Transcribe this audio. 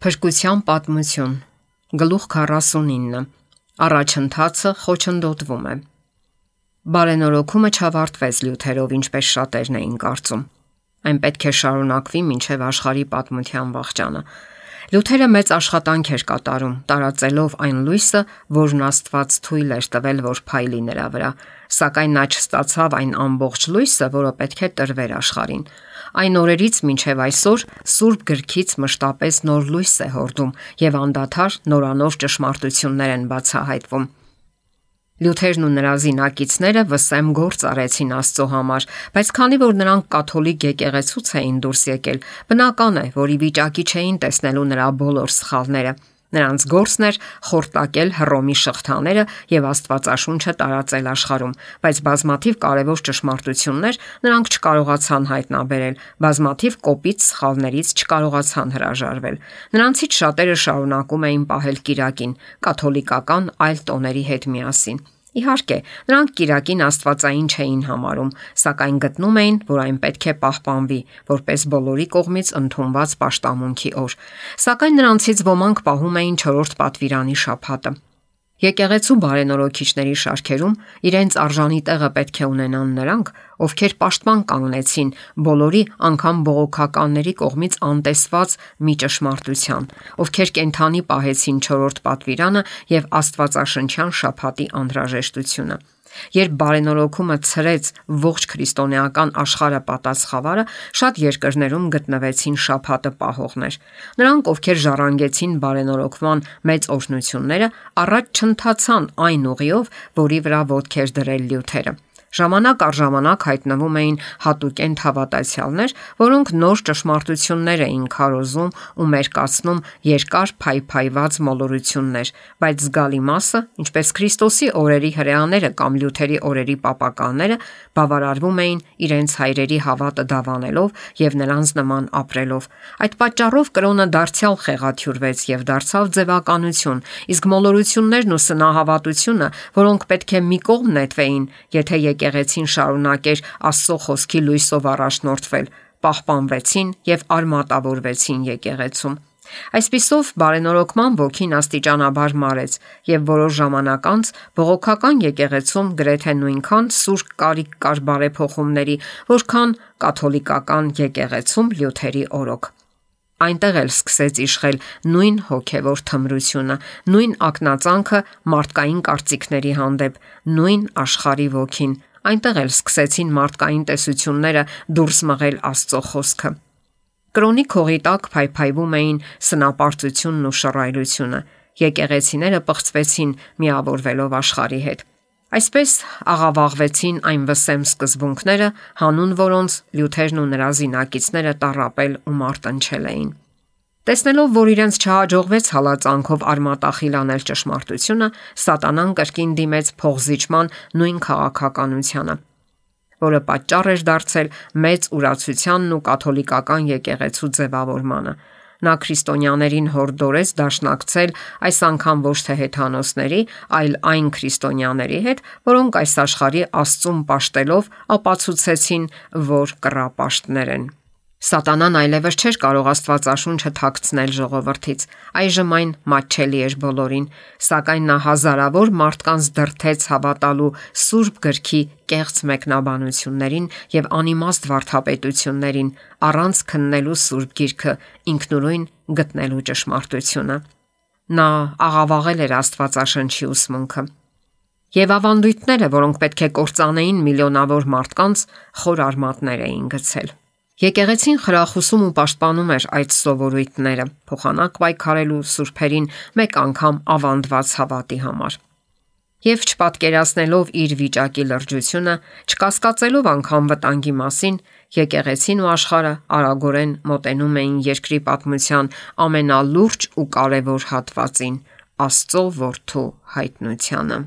Փրկության պատմություն, գլուխ 49, առաջընթացը խոչընդոտվում է։ Բարենորոգումը չավարտվեց Լյութերով, ինչպես շատերն էին կարծում։ Այն պետք է շարունակվի մինչև աշխարհի պատմության վախճանը։ Լյութերը մեծ աշխատանք էր կատարում, տարածելով այն լույսը, որն Աստված թույլ էր տվել, որ փայլի նրա վրա, սակայն նա չստացավ այն ամբողջ լույսը, որը պետք է տրվեր աշխարհին։ Այն օրերից մինչև այսօր Սուրբ Գրքից մշտապես նոր լույս է հորդում եւ անդադար նորանոր ճշմարտություններ են բացահայտվում։ Լյութերն ու նրա զինակիցները վսեմ գործ արեցին Աստծո համար, բայց քանի որ նրանք կաթոլիկ եկեղեցուց էին դուրս եկել, բնական է, որ ի վիճակի չէին տեսնելու նրա բոլոր սխալները։ Նրանց գործն էր խորտակել Հռոմի շղթաները եւ Աստվածաշունչը տարածել աշխարհում, բայց բազմաթիվ կարևոր ճշմարտություններ նրանք չկարողացան հայտնաբերել, բազմաթիվ կոպիտ սխալներից չկարողացան հրաժարվել։ Նրանցից շատերը շարունակում էին պահել կիրակին, կաթոլիկական այլ տոների հետ միասին։ Իհարկե, նրանք կիրակին աստվածային չէին համարում, սակայն գտնում էին, որ այն պետք է պահպանվի, որպես բոլորի կողմից ընդունված պաշտամունքի օր։ Սակայն նրանցից ոմանք պահում էին 4-րդ պատվիրանի շաբաթը։ Եկեղեցու բարենորոգիչների շարքերում իրենց արժանի տեղը պետք է ունենան նրանք, ովքեր պաշտպան կանգնեցին բոլորի, անգամ բողոքականների կողմից անտեսված մի ճշմարտության, ովքեր կենթանի պահեցին 4-րդ պատվիրանը եւ աստվածաշնչյան շաբաթի անհրաժեշտությունը։ Երբ բարենորոգումը ցրեց ողջ քրիստոնեական աշխարհը պատած խավարը, շատ երկրներում գտնվեցին շաբաթը պահողներ։ Նրանք, ովքեր ժառանգեցին բարենորոգման մեծ օրհնությունները, առաջ չընթացան այն ուղիով, որի վրա ոտք էր դրել Լյութերը։ Ժամանակ առ ժամանակ հայտնվում էին հատուկենտ հավատացյալներ, որոնք նոր ճշմարտություններ էին քարոզում ու մերկացնում երկար փայփայված մոլորություններ, բայց զգալի մասը, ինչպես Քրիստոսի օրերի հրեաները կամ Լյութերի օրերի պապականները, բավարարվում էին իրենց հայրերի հավատը դավանելով եւ նրանց նման ապրելով։ Այդ պատճառով կրոնը դարձյալ խեղաթյուրվեց եւ դարձավ ձևականություն, իսկ մոլորություններն ու սնահավատությունը, որոնք պետք է մի կողմ նետվեին, եթե եկեղեցին շարունակեր Աստծո խոսքի լույսով առաջնորդվել, պահպանվեցին եւ արմատավորվեցին եկեղեցում։ Այսպիսով բարենորոգման ոգին աստիճանաբար մարեց եւ որոշ ժամանակ անց բողոքական եկեղեցում գրեթե նույնքան սուր կարիք կար բարեփոխումների, որքան կաթոլիկական եկեղեցում Լյութերի օրոք։ Այնտեղ էլ սկսեց իշխել նույն հոգևոր թմրությունը, նույն ակնածանքը մարդկային կարծիքների հանդեպ, նույն աշխարհի ոգին։ Այնտեղ էլ սկսեցին մարդկային տեսությունները դուրս մղել Աստծո խոսքը։ Կրոնի քողի տակ փայփայվում էին սնապարծությունն ու շռայլությունը։ Եկեղեցիները պղծվեցին միավորվելով աշխարհի հետ։ Այսպես աղավաղվեցին այն վսեմ սկզբունքները, հանուն որոնց Լյութերն ու նրա զինակիցները տառապել ու մարտնչել էին։ Տեսնելով, որ իրենց չհաջողվեց հալածանքով արմատախիլ անել ճշմարտությունը, սատանան կրկին դիմեց փողզիջման նույն քաղաքականությանը, որը պատճառ էր դարձել մեծ ուրացությանն ու կաթոլիկական եկեղեցու ձևավորմանը։ Նա քրիստոնյաներին հորդորեց դաշնակցել այս անգամ ոչ թե հեթանոսների, այլ այն քրիստոնյաների հետ, որոնք այս աշխարհի Աստծուն պաշտելով ապացուցեցին, որ կռապաշտներ են։ Սատանան այլևս չէր կարող Աստվածաշունչը թաքցնել ժողովրդից։ Այժմ այն մատչելի էր բոլորին, սակայն նա հազարավոր մարդկանց դրդեց հավատալու Սուրբ Գրքի կեղծ մեկնաբանություններին եւ անիմաստ վարդապետություններին, առանց քննելու Սուրբ Գիրքը, ինքնուրույն գտնելու ճշմարտությունը։ Նա աղավաղել էր Աստվածաշնչի ուսմունքը։ Եվ ավանդույթները, որոնք պետք է կործանեին միլիոնավոր մարդկանց, խոր արմատներ էին գցել։ Եկեղեցին խրախուսում ու պաշտպանում էր այդ սովորույթները, փոխանակ պայքարելու սուրբերին մեկ անգամ ավանդված հավատի համար։ Եվ չպատկերացնելով իր վիճակի լրջությունը, չկասկածելով անգամ վտանգի մասին, եկեղեցին ու աշխարհը արագորեն մոտենում էին երկրի պատմության ամենալուրջ ու կարևոր հատվածին՝ Աստծո որդու հայտնությանը։